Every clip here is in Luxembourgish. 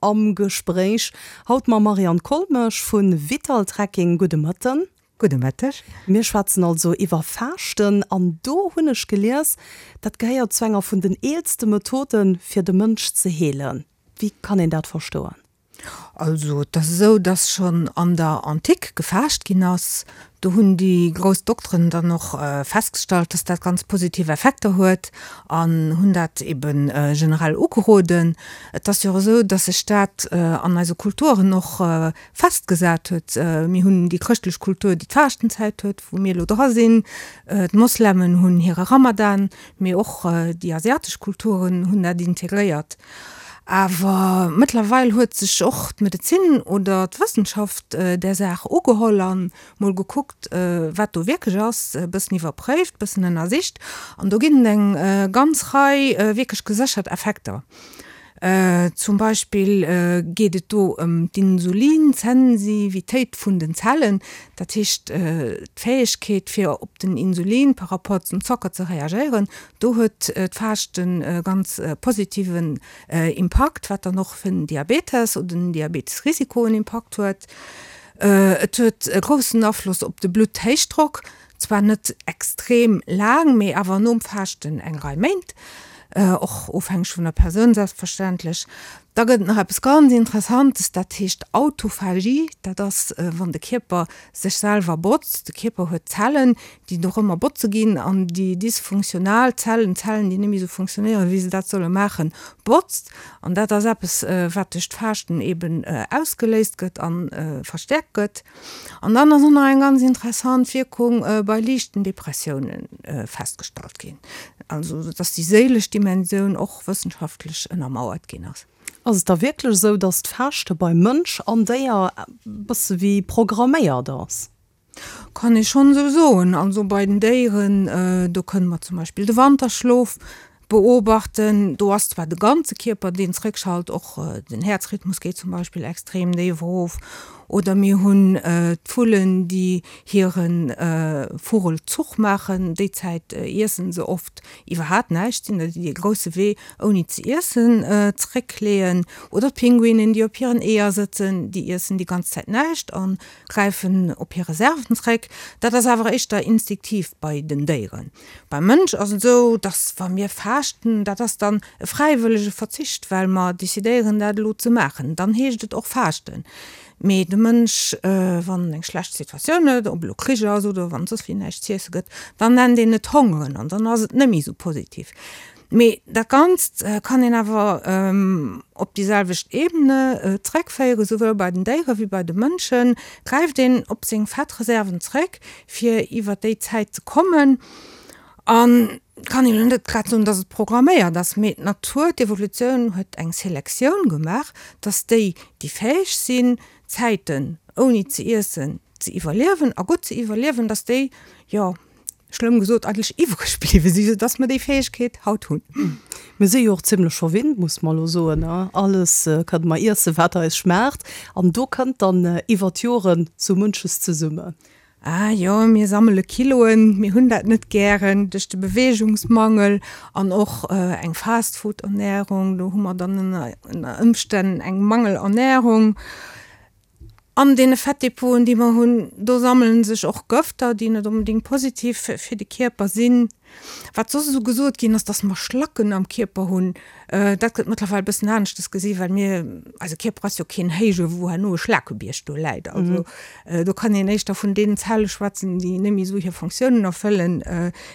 Am Gespréich haut mam Marianne Kollmesch vu Vital Trekking. Gudde Mëtten. Gudde Mëtteg. Mir schwätzen also iwwer Faaschten an do hunn ech gelies, dat gehéiert zu enger vun den eelste Methoden, fir de Mënsch ze heelen. Wéi kann een dat verstoen? Also et ass esou, datt schonn an der Antik gefaascht ginn ass. Do hunn déi grouss Dokteren dann och festgestallt, dass dat ganz positiv Effekter huet an hunn dat ebe generell ugeroden. Et ass jo och esou, dass sech dat an eise Kulturen och festgesat huet. Mir hunn déi chrëschtlech Kultur, déi d'Faaschtenzäit huet, wou mir elo dra sinn. D'Moslemen hunn hire Ramadan, mee och déi asiatesch Kulturen hunn dat integréiert. Awer mëttlerweil huet sech och d'Medezin oder d'Wëssenschaft där Saach ugeholl an mol gekuckt, wat do wierklech ass, e bëssen iwwerpréift, e bëssen ënnersicht. An do ginn et eng ganz Rei wierklech geséchert Effekter. Zum Beispill geet et do ëm d'Insulinsensivitéit vun den Zellen, dat heescht d'Fäegkeet fir op den Insulin par rapport zum Zocker ze reagéieren. Do huet d'Faaschten e ganz positiven Impakt, wat dann och fir den Diabetes oder den Diabetesrisiko en Impakt huet. Et huet e groussen Afloss op de Blutthéichdrock, zwar net extrem laang, mee awer nom Faaschten eng Rei Méint, och ofhängeg vun der Persoun selbstverständlech. Da gëtt et nach eppes ganz Interessantes, dat heescht Autophagie. Dat ass, wann de Kierper sech selwer botzt. De Kierper huet Zellen, déi dorëmmer botze ginn an déi dysfunktional Zellen, Zellen, déi net méi esou funktionéieren, wéi se dat solle maachen, botzt. An dat ass eppes, wat duerch d'Faaschten eben ausgeléist gëtt a verstäerkt gëtt. An dann ass och nach eng ganz interessant Wierkung bei liichten Depressioune festgestallt ginn. Also dass déi séilesch Dimensioun och wëssenschaftlech ënnermauert ginn ass. Ass et da wierklech esou, dass d'Faaschte bei Mënsch an Déier e bësse wéi programméiert ass? Kann ee schonn esou soen. Also bei den Déieren, do kënne mer zum Beispill de Wanterschlof beobachten. Do ass zwar de ganze Kierper, deen zréckschalt, och den Häerzrhythmus geet zum Beispill extrem déif erof. Oder mir hunn d'Vullen, déi hire Vogelzuch maachen. Déi Zäit iessen se oft iwwerhaapt näischt, sinn der, déi dee grousse Wee ouni ze iessen zeréckleeën. Oder d'Pinguinen, déi op hiren Eeër sëtzen, déi iessen déi ganz Zäit näischt a gräifen op hir Reserven zeréck. Dat ass awer éischter instinktiv bei den Déieren. Beim Mënsch ass et esou, dass wa mir faaschten, dat ass dann e fräiwëllege Verzicht, well mer decidéieren dat elo ze maachen. Dann heescht et och faaschten. Mee de Mënsch, wann en eng schlecht Situatioun huet, ob elo Krich ass oder wann et soss wéi näischt z'iesse gëtt, dann nennt een et hongeren an dann ass et net méi esou positiv. Mee dat Ganzt kann een awer op déi selwecht Ebene zréckféieren, souwuel bei den Déiere wéi bei de Mënschen gräift een op seng Fettreserven zréck, fir iwwer déi Zäit ze kommen. An kann een elo net grad soen, dass et programméiert ass, mee d'Natur, d'Evolutioun huet eng Selektioun gemaach, dass déi, déi fäeg sinn, Zäiten ouni ze iessen ze iwwerliewen a gutt ze iwwerliewen, dass déi, jo, schlëmm gesot, eigentlech iwwreg bliwwe sinn, soudass mer déi Fäegkeet haut hunn. Mir si jo och zimlech verwinnt, muss mer elo soen. Alles kënne mer iessen, wat eis schmaacht. An do kënnt dann iwwer d'Joren sou munches zesummen. Ah jo, mir sammele Kiloen, mir hunn dat net gären, duerch de Beweegungsmangel an och eng Fastfood-Ernärung, do hu mer dann ënner Ëmstänn eng Mangelernärung. An deene Fettdepoten, déi mer hunn, do sammele sech och Gëfter, déi net onbedéngt positiv fir de Kierper sinn. Wat soss esou gesot ginn ass, dass mer Schlacken am Kierper hunn, dat gëtt mëttlerweil e bëssen aneschtes gesi well mir, eise Kierper ass jo keen Héije wou herno e Schlakebierg do läit. Also do kann een éischter vun deenen Zelle schwätzen, déi net méi esou hir Fonctiounen erfëllen,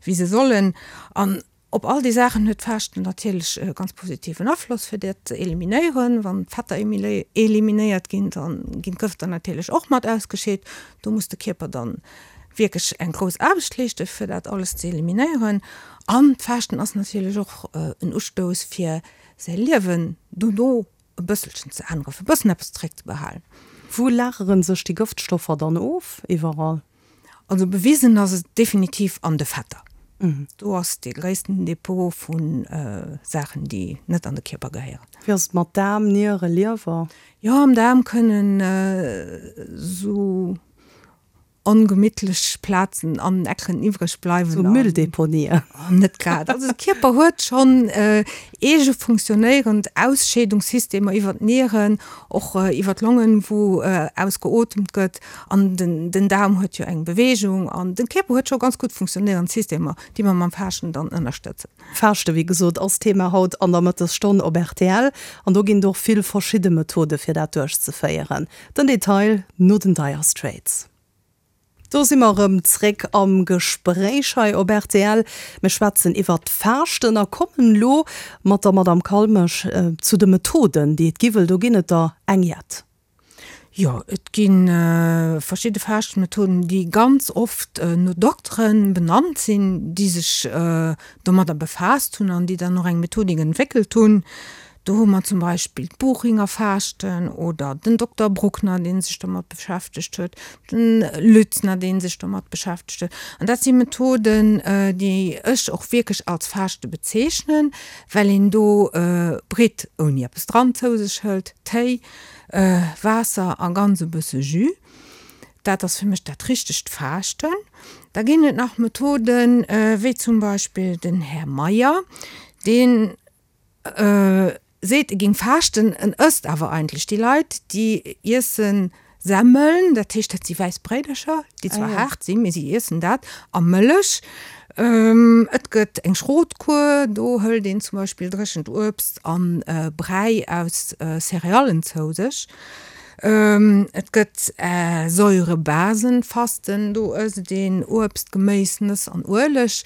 wéi se sollen. An Op all déi Saachen huet d'Faaschten natierlech e ganz positiven Afloss, fir dat ze eliminéieren. Wann d'Fetter eliminéiert ginn, da ginn d'Gëfter natierlech och mat ausgescheet. Do muss de Kierper dann wierklech eng grouss Aarbecht leeschten, fir dat alles ze eliminéieren. An d'Faaschten ass natierlech och en Ustouss, fir säi Liewen dono e bësselchen ze änneren, fir e bëssen eppes zeréckzebehalen. Wou lagere sech déi Gëftstoffer dann of iwwerall? Also bewisen ass et definitiv an de Fetter. Do ass dee gréissten Depot vu Saachen, déi net an de Kierper gehéieren. Wéi ass et mat Daarm, Niere, Liewer? Jo, am Daarm kënnen esou. ongemittlech Plazen an Ecken iwwreg bleiwen. Sou Mülldeponien. Net grad. Also de Kierper huet schonn eege funktionéierend Ausscheedungssystemer iwwer d'Nieren, och iwwer d'Longen, wou ausgeotemt gëtt. An den Daarm huet jo eng Beweegung. An de Kierper huet scho ganz gutt funktionéierend Systemer, déi mer mam Faaschten dann ënnerstëtzen. Faaschte wéi gesot ass Thema haut an der Mëttesstonn op rtl. An do ginn et och vill verschidde Methode fir dat duerchzeféieren. Den Detail no den Dire Straits. Do si mer erëm zréck am Gespréich hei op rtl. Mir schwätzen iwwert d'Faaschten a kommen elo mat der Madame Kalmesch zu de Methoden déi et gi, wëll do ginn et der eng jett. Jo, et gi verschidde Faaschtmethoden, déi ganz oft no Doktere benannt sinn, déi sech domadder befaasst hunn an déi dann och eng Methodik entwéckelt hunn. Do hu mer zum Beispill d'Buchinger Faaschten oder den Dokter Bruckner, dee sech domat beschäftegt huet, den Lützner, dee sech domat beschäftegt huet. An dat si Methoden, déi ech och wierklech als Faaschte bezeechnen, well een do Britt ouni eppes dran zou sech hëlt, Téi, Waasser a ganz e bësse Jus. Dat ass fir mech dat richtegt Faaschten. Da ginn et nach Methoden, wéi zum Beispill den Här Meyer, dee seet, e géing faaschten, en ësst awer eigentlech. Déi Leit, déi iessen Semmeln, dat heescht, dat si wäiss Bréidercher, déi zwar haart sinn, mee si iessen dat, a Mëllech. Et gëtt eng Schrotkur, do hëlt een zum Beispill dréchent Uebst a Bräi aus Céréallen zou sech. Et gëtt Säurebasenfasten, do ësst een Uebst, Geméis, Nëss an Ueleg.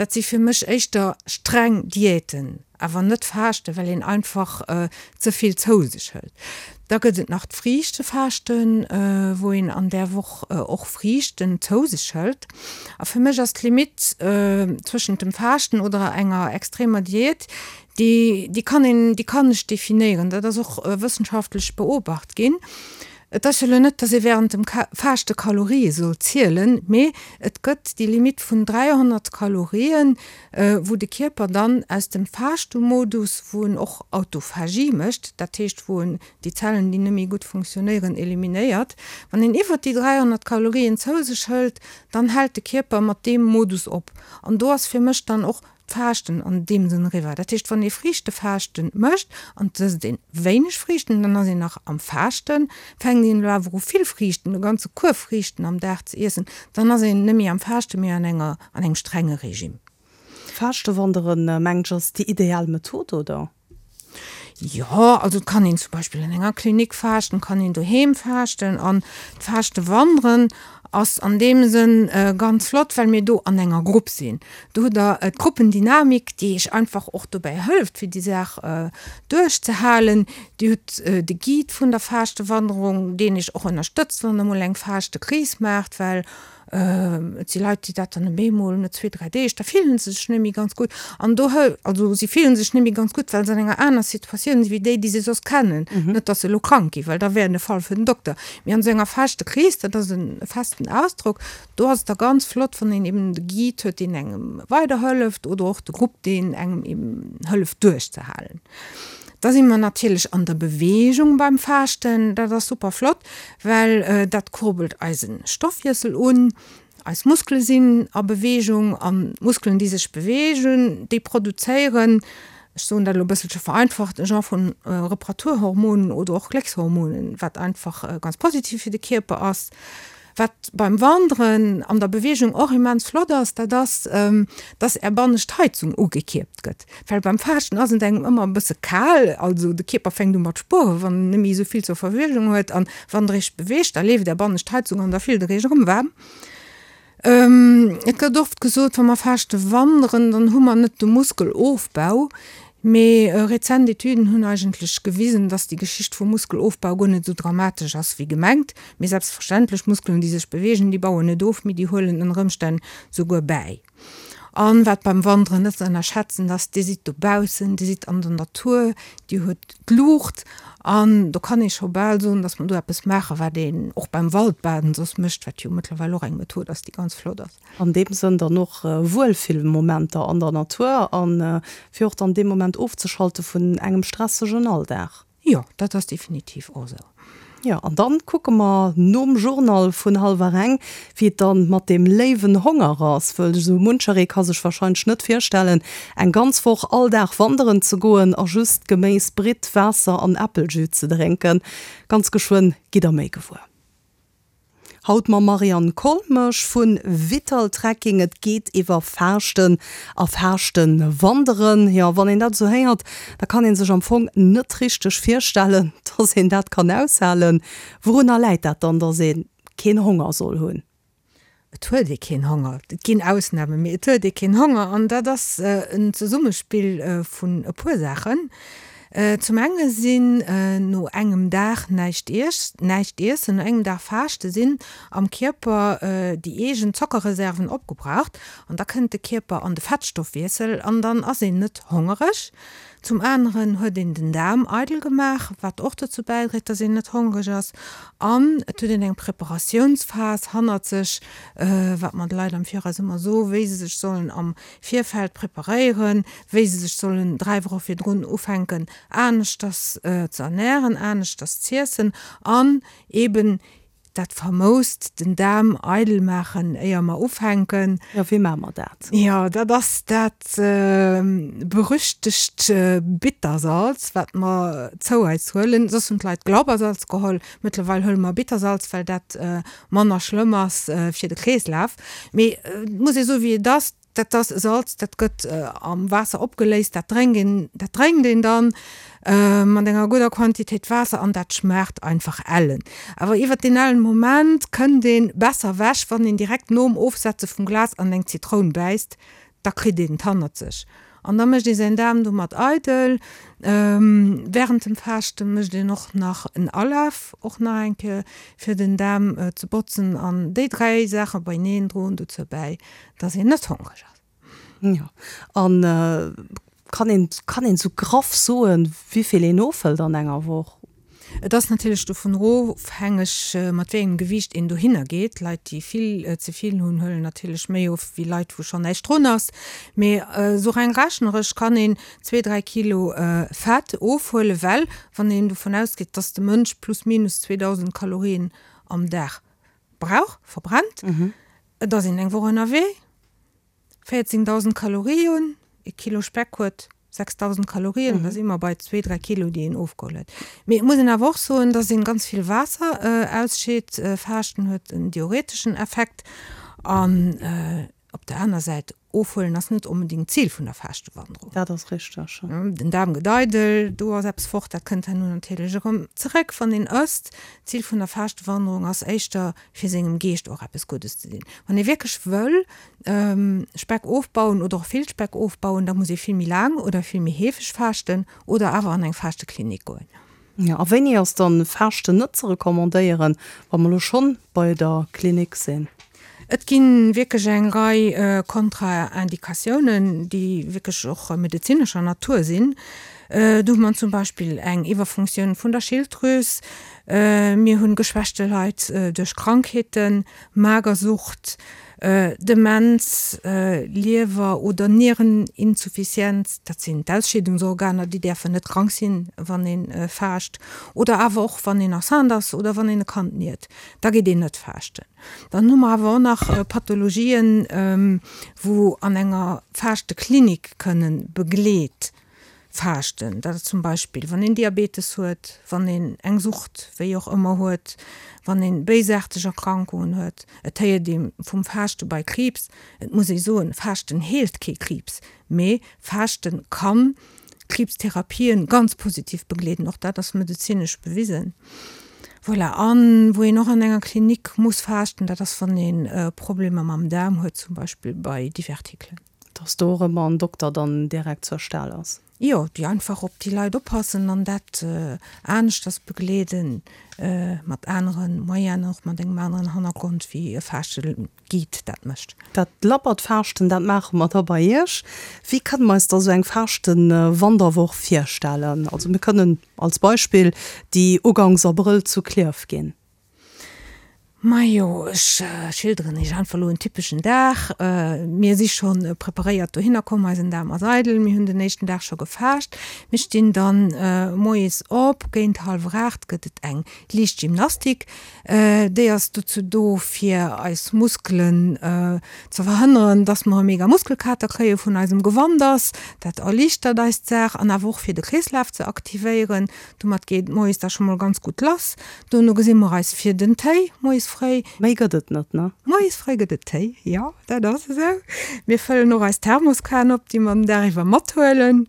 Dat si fir mech éischter streng Diäten. Awer net faaschten, well een einfach ze vill zou sech hëlt. Da gëtt et nach d'Friichtefaaschten, wou een an där Woch och Friichten zou sech hëlt. A fir mech ass d'Limitt zwëschent dem Faaschten oder enger extremer Diät, déi, déi kann een, déi kann ech definéieren. Dat ass och wëssenschaftlech beobacht ginn. Et ass jo elo net, dass ee während dem Faaschte Kalorië soll zielen, mee et gëtt déi Limitt vun 300 Kalorien, wou de Kierper dann aus dem Faaschte-Modus, wou en och Autophagie mécht, dat heescht wou en déi Zellen, déi net méi gutt funktionéieren, eliminéiert, wann een iwwert déi 300 Kalorien zou sech hëlt, dann hält de Kierper mat deem Modus op. An do ass fir mech dann och d'Faaschten an deem Sënn eriwwer. Dat heescht, wann ee Friichtefaaschte mécht an et ësst een wéineg Friichten, dann ass een nach am Faaschten. Fänkt een elo awer u vill Friichten, e ganze Kuerf Friichten am Dag ze iessen, dann ass een net méi am Faaschten, mee an enger, an engem strenge Regime. Faaschtewanderen, mengt ech, ass déi ideal Method, oder? Jo, also et kann een zum Beispill an enger Klinik faaschten, et kann een doheem faaschten an d'Faaschtewanderen ass an deem Sënn ganz flott, well mir do an enger Grupp sinn. Do hutt der d'Gruppendynamik, déi iech einfach och dobäi hëlleft, fir déi Saach duerchzehalen. Dir hutt de Guide vun der Faaschtewandерung, deen iech och ënnerstëtzt, wann der mol eng Faaschtekris maacht, well Et si Leit, déi dat dann op eemol no zwee, dräi Deeg, da fillen se sech net méi ganz gutt. An do hël, also si fillen sech net méi ganz gutt, well se an enger aner Situatioun si wéi déi, déi se soss kennen. Net, datt se elo krank ginn, well da wär en e Fall fir den Dokter. Mee an esou enger Faschtekris, dat ass e festen Ausdrock, do ass et da ganz flott, wann een eben de Guide huet, deen engem weiderhëlleft oder och de Grupp, deen engem eben hëlleft duerchzehalen. Da si mer natierlech an der Beweegung beim Faaschten. Dat ass super flott, well dat kurbelt eise Stoffwiessel un. Eis Muskele sinn a Beweegung an d'Muskelen, déi sech beweegen, déi produzéieren, ech soen dat elo e bësselche vereinfacht, e Genre vun Reparaturhormonen oder och Gléckshormonen, wat einfach ganz positiv fir de Kierper ass. Wat beim Wanderen an der Beweegung och immens flott ass, dat ass, dass Är bannescht Heizung ugekierpt gëtt. Well beim Faaschten ass et engem ëmmer e bësse kal, also de Kierper fänkt u mat spueren, wann en net méi esou vill zur Verfügung huet. An wann Der Iech beweegt, da leeft Är bannescht Heizung an da fillt Der Iech erëm waarm. Et gëtt oft gesot, wa mer faaschte wanderen, dann hu mer net de Muskelofbau. Mee rezent Etüden hunn eigentlech gewisen, dass déi Geschicht vum Muskelofbau guer net esou dramatesch ass wéi gemengt. Mee selbstverständlech, Muskelen déi sech beweegen, déi bauen net of, mee déi huelen ënner Ëmstänn souguer bäi. An wat beim Wanderen net ze ënnerschätzen ass, Dir sidd dobaussen, Dir sidd an der Natur, Dir hutt d'Luucht an do kann ee scho bal soen, dass mer do eppes maachen, wat een och beim Waldbaden soss mécht, wat jo mëttlerweil och eng Method ass, déi ganz flott ass. An deem Sënn dann och Wuelfillmomenter an der Natur an fir och dann dee Moment ofzeschalte vun engem stressegen Alldag. Jo, dat ass definitiv och esou. Jo, an dann kucke mer nom Journal vun hallwer eng, wéi et dann mat deem léiwen Honger ass, wëll esou muncheree ka sech wahrscheinlech net virstellen, eng ganz Woch all Dag wanderen ze goen a just Geméis, Britt, Waasser an Äppeljus ze drénken. Ganz geschwënn gitt der méi gewuer. Haut mam Marianne Kolmesch vu Vital Trekking. Et geet iwwer Faaschten a Faaschtewanderen. Jo, wann een dat esou héiert, da kann ee sech am Fong net richteg virstellen, dass een dat kann aushalen. Wourunner läit dat dann, dass ee keen Honger soll hunn? Et huet ee keen Honger. Et ginn Ausnamen, mee et huet ee keen Honger. An dat ass en Zesummespill vun e puer Saachen. Zum enge sinn no engem Dag näischt näischt iessen, no engem Dag Faaschte sinn am Kierper déi eegen Zockerreserven opgebraucht an da kënnt de Kierper an de Fettstoffwiessel an dann ass een net hongereg. Zum aneren huet een den Daarm eidel gemaach, wat och dozou bäidréit, dass een net hongereg ass an et huet een eng Preparatiounsphas hannert sech, wat mer de Leit am Viraus ëmmer soen, wéi se sech sollen am Virfeld preparéieren, wéi se sech sollen 3 Woche virdrun ufänken aneschters ze ernähren, aneschters z'iessen an eben dat famoust den Daarm eidel maachen éier mer ufänken. Jo, wéi maache mer dat? Jo, dat ass dat berüchtegt Bittersalz, wat mer zou eis huelen. Soss hunn d'Leit Glaubersalz geholl, mëttlerweil huele mer Bittersalz, well dat manner schlëmm ass fir de Kreeslaf. Mee et muss ee soen, wéi et ass, Dat ass Salz, dat gëtt am Waasser opgeléist, dat drénkt een, dat drénkt een dann mat enger gudder Quantitéit Waasser an dat schmaacht einfach ellen. Awer iwwert deen ellen Moment kënnt een besser ewech, wann een direkt nom Ofsetze vum Glas an eng Zitroun bäisst, da kritt een et hannert sech an da mécht ee säin Daarm domat eidel. Während dem Faaschte mécht een och nach en Alaf, och nach eng Kéier fir den Daarm ze botzen an déi 3 Saache beineen droen dozou bäi, dass een net hongreg ass. Jo, an kann een, kann een sou graff soen, wéivill een ofhëlt an enger Woch? Et ass natierlech dovun ofhängeg, mat wéi engem Gewiicht een dohinner geet. Leit, déi vill ze vill hunn, huelen natierlech méi of wéi Leit, wou schonn näischt drun ass. Mee esou reng rechneresch kann een zwee, dräi Kilo Fett ofhuelen, well wann een dovun ausgeet, dass de Mënsch plus minus 2.000 Kalorien am Dag brauch, verbrennt, Et ass een eng Woch ënnerwee, 14.000 Kalorien, e Kilo Speck huet 6.000 Kalorien, da si mer bei zwee, dräi Kilo, déi een ofgeholl huet. Mee et muss een awer och soen, dass een ganz vill Waasser ausscheet. Faaschten huet en diureteschen Effekt an op der aner Säit, ofhuelen ass net onbedéngt d'Zil vun der Faaschtwanderung. Dat ass richteg. Den Daarm gëtt eidel, do ass eppes fort, dat kënnt herno natierlech erëm zeréck, wann een ësst. D'Zil vun der Faaschtwanderung ass éischter, fir sengem Geescht och eppes Guddes ze dinn. Wann ee wierklech wëll Speck ofbauen oder och vill Speck ofbauen, da muss ee vill méi laang oder vill méi heefeg faaschten oder awer an eng Faaschteklinik goen. Jo, a wéini ass dann Faaschten net ze recommandéieren, wa mer elo schonn bei der Klinik sinn? Et gi wierklech eng Rei Kontraindikatiounen, déi wierklech och medezinescher Natur sinn. Do hu mer zum Beispill eng Iwwerfunktioun vun der Schilddrüs, mir hu geschwächte Leit duerch Krankheeten, Magersucht, Demenz, Liewer oder Niereninsuffizienz, dat sinn d'Ausscheedungsorganer, déi däerfen net krank sinn, wann ee faascht, oder awer och wann een enceinte ass oder wann een e Kand niert, da geet een net faaschten. Dann hu mer awer och nach Pathologien, wou an enger Faaschteklinik kënnen begleet faaschten. Dat ass zum Beispill, wann een Diabetes huet, wann een eng Sucht, wéi och ëmmer, huet, wann een béisaarteg Erkrankungen huet. Et héiert ee vum Faaschte bei Kriibs. Et muss ee soen, Faaschten heelt kee Kriibs, mee Faaschte kann Kriibstherapien ganz positiv begleeden. Och dat ass medezinesch bewisen. Voilà, an wou een och an enger Klinik muss faaschten, dat ass wann ee Problemer mam Daarm huet, zum Beispill bei Divertikelen. Dass do och ëmmer en Dokter dann direkt zur Stell ass. Jo, déi einfach op déi Leit oppassen an dat aneschters begleeden, mat anere Moyenen, och mat engem aneren Hannergrond wéi e Faaschte-Guide dat mécht. Dat labbert Faaschten, dat maache mer da bei Iech. Wéi kënne mer eis da sou eng Faaschte-Wanderwoch virstellen? Also mir kënnen als Beispill déi ugangs Abrëll zu Klierf ginn. Majo, ech schilderen iech einfach elo en typeschen Dag. Mir si scho preparéiert dohinner komm, eisen Daarm ass eidel, mir hunn den éischten Dag scho gefaascht. Mir stinn dann moies op, géint hallwer 8 gëtt et eng liicht Gymnastik. Déi ass dozou do fir eis Muskelen ze verhënneren, dass mer e mega Muskelkater kréie vun eisem Gewanders. Dat erliichtert eis d'Saach an awer och fir de Kreeslaf ze aktivéieren. Domat geet et moies da scho mol ganz gutt lass. Dono gesi mer eis fir den Téi moies fréi. Méi gëtt et net, ne? Moies fréi gëtt et Téi, jo, dat ass esou. Mir fëllen och eis Thermoskan op, déi mer den Dag iwwer mathuelen.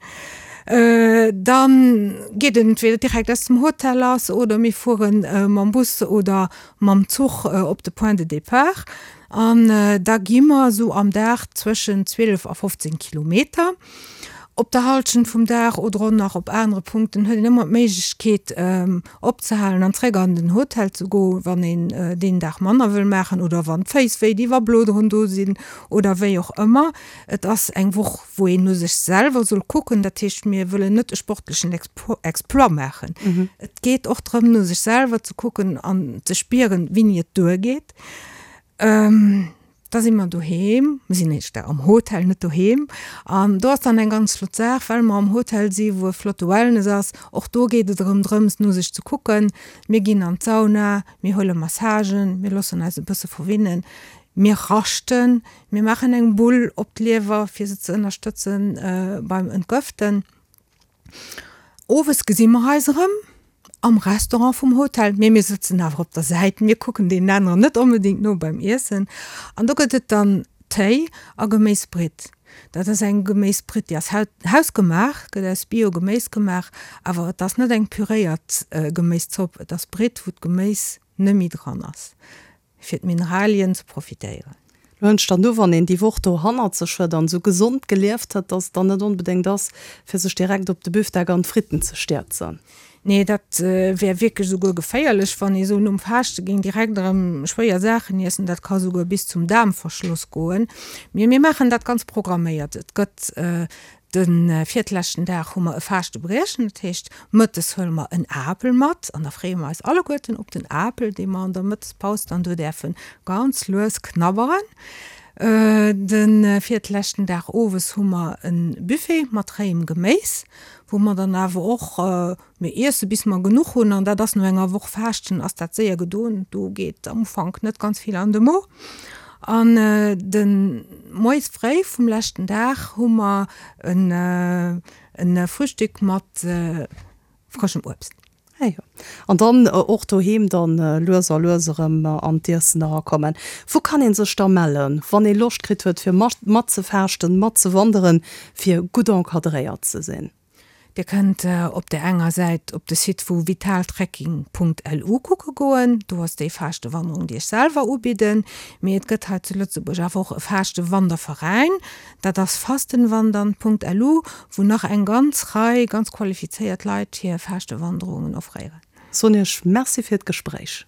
Dann geet et entweder direkt aus dem Hotel lass oder mir fuere mam Bus oder mam Zuch op de Point de départ. An da gi mer esou am Dag zwëschen 12 a 15 Kilometer. Op der Halschent vum Dag oder och nach op anere Punkten huet een ëmmer d'Méiglechkeet opzehalen an zréck an den Hotel ze goen, wann een deen Dag manner wëll maachen oder wann d'Féiss wéi di wa Bloderen do sinn oder wéi och ëmmer. Et ass eng Woch wou een no sech selwer soll kucken, dat heescht mir wëllen net e sportlechen Exploit maachen. Et geet och drëm no sech selwer ze kucken an ze spieren wéini et duergeet. Da si mer doheem, mir sinn éischter am Hotel, net doheem. An do ass dann eng ganz flott Saach, well mer am Hotel si wou e flotte Wellness ass. Och do geet et erëm drëms, no sech ze kucken. Mir ginn an d'Sauna, mir huele Massagen, mir loossen eis e bësse verwinnen, mir raschten, mir maachen eng Bull op d'Liewer, fir se ze ënnerstëtzen beim Entgëften. Owes gesi mer eis erëm am Restaurant vum Hotel, mee mir sëtzen awer op der Säit, mir kucken deenen aneren net onbedéngt no beim Iessen. An do gëtt et dann Téi a Geméisbritt. Dat ass eng Geméisbritt, déi ass hausgemaach, gëtt aus Bio-Geméis gemaach, awer et ass net eng püréiert Geméiszopp, et ass Britt, wou d'Geméis net méi dran ass. fir d'Mineralien ze profitéieren. Lo hënnt dann du, wann een déi Woch do hannert sech huet an esou gesond gelieft huet, dass et dann net onbedéngt ass, fir sech direkt op de Büfdeck an d'Fritten ze stierzen. Nee, dat wär wierklech esouguer geféierlech, wann ee sou nom Faaschte géing direkt erëm schwéier Saachen iessen. Dat ka souguer bis zum Daarmverschloss goen. Mee mir maachen dat ganz programméiert. Et gëtt De virtleschten Dag hu mer e Faaschte-Briechen, dat heescht mëttes huele mer en Apel mat an da freeë mer eis alleguerten op den Apel, dee mer an der Mëttespaus dann do däerfe ganz lues knabberen. De virtleschten Dag owes hu mer e Buffet mat réiem Geméis, wou mer dann awer och Mir iesse bis mer genuch hunn an dat ass no enger Woch Faaschten ass dat séier gedoen. Do geet am Ufank net ganz vill an de Mo. An de moies fréi vum leschten Dag hu mer en Frühstück mat frëschem Uebst. Ah jo. An dann och doheem dann lues a lues erëm an d'Iessen erakommen. Wou kann een sech da mellen, wann ee Loscht kritt huet fir matzefaaschten, matzewanderen, fir gutt encadréiert ze sinn? Dir kënnt op där enger Säit op de Site vu vitaltrekking.lu kucke goen, do ass déi Faaschte-Wanderung, déi ech selwer ubidden. Mee et gëtt hei zu Lëtzebuerg awer och e Faaschte-Wanderveräin, dat ass fastenwandern.lu, wou nach eng ganz Rei ganz qualifizéiert Leit hir Faaschte-Wanderungen offréieren. Soen Iech Merci fir d'Gespréich.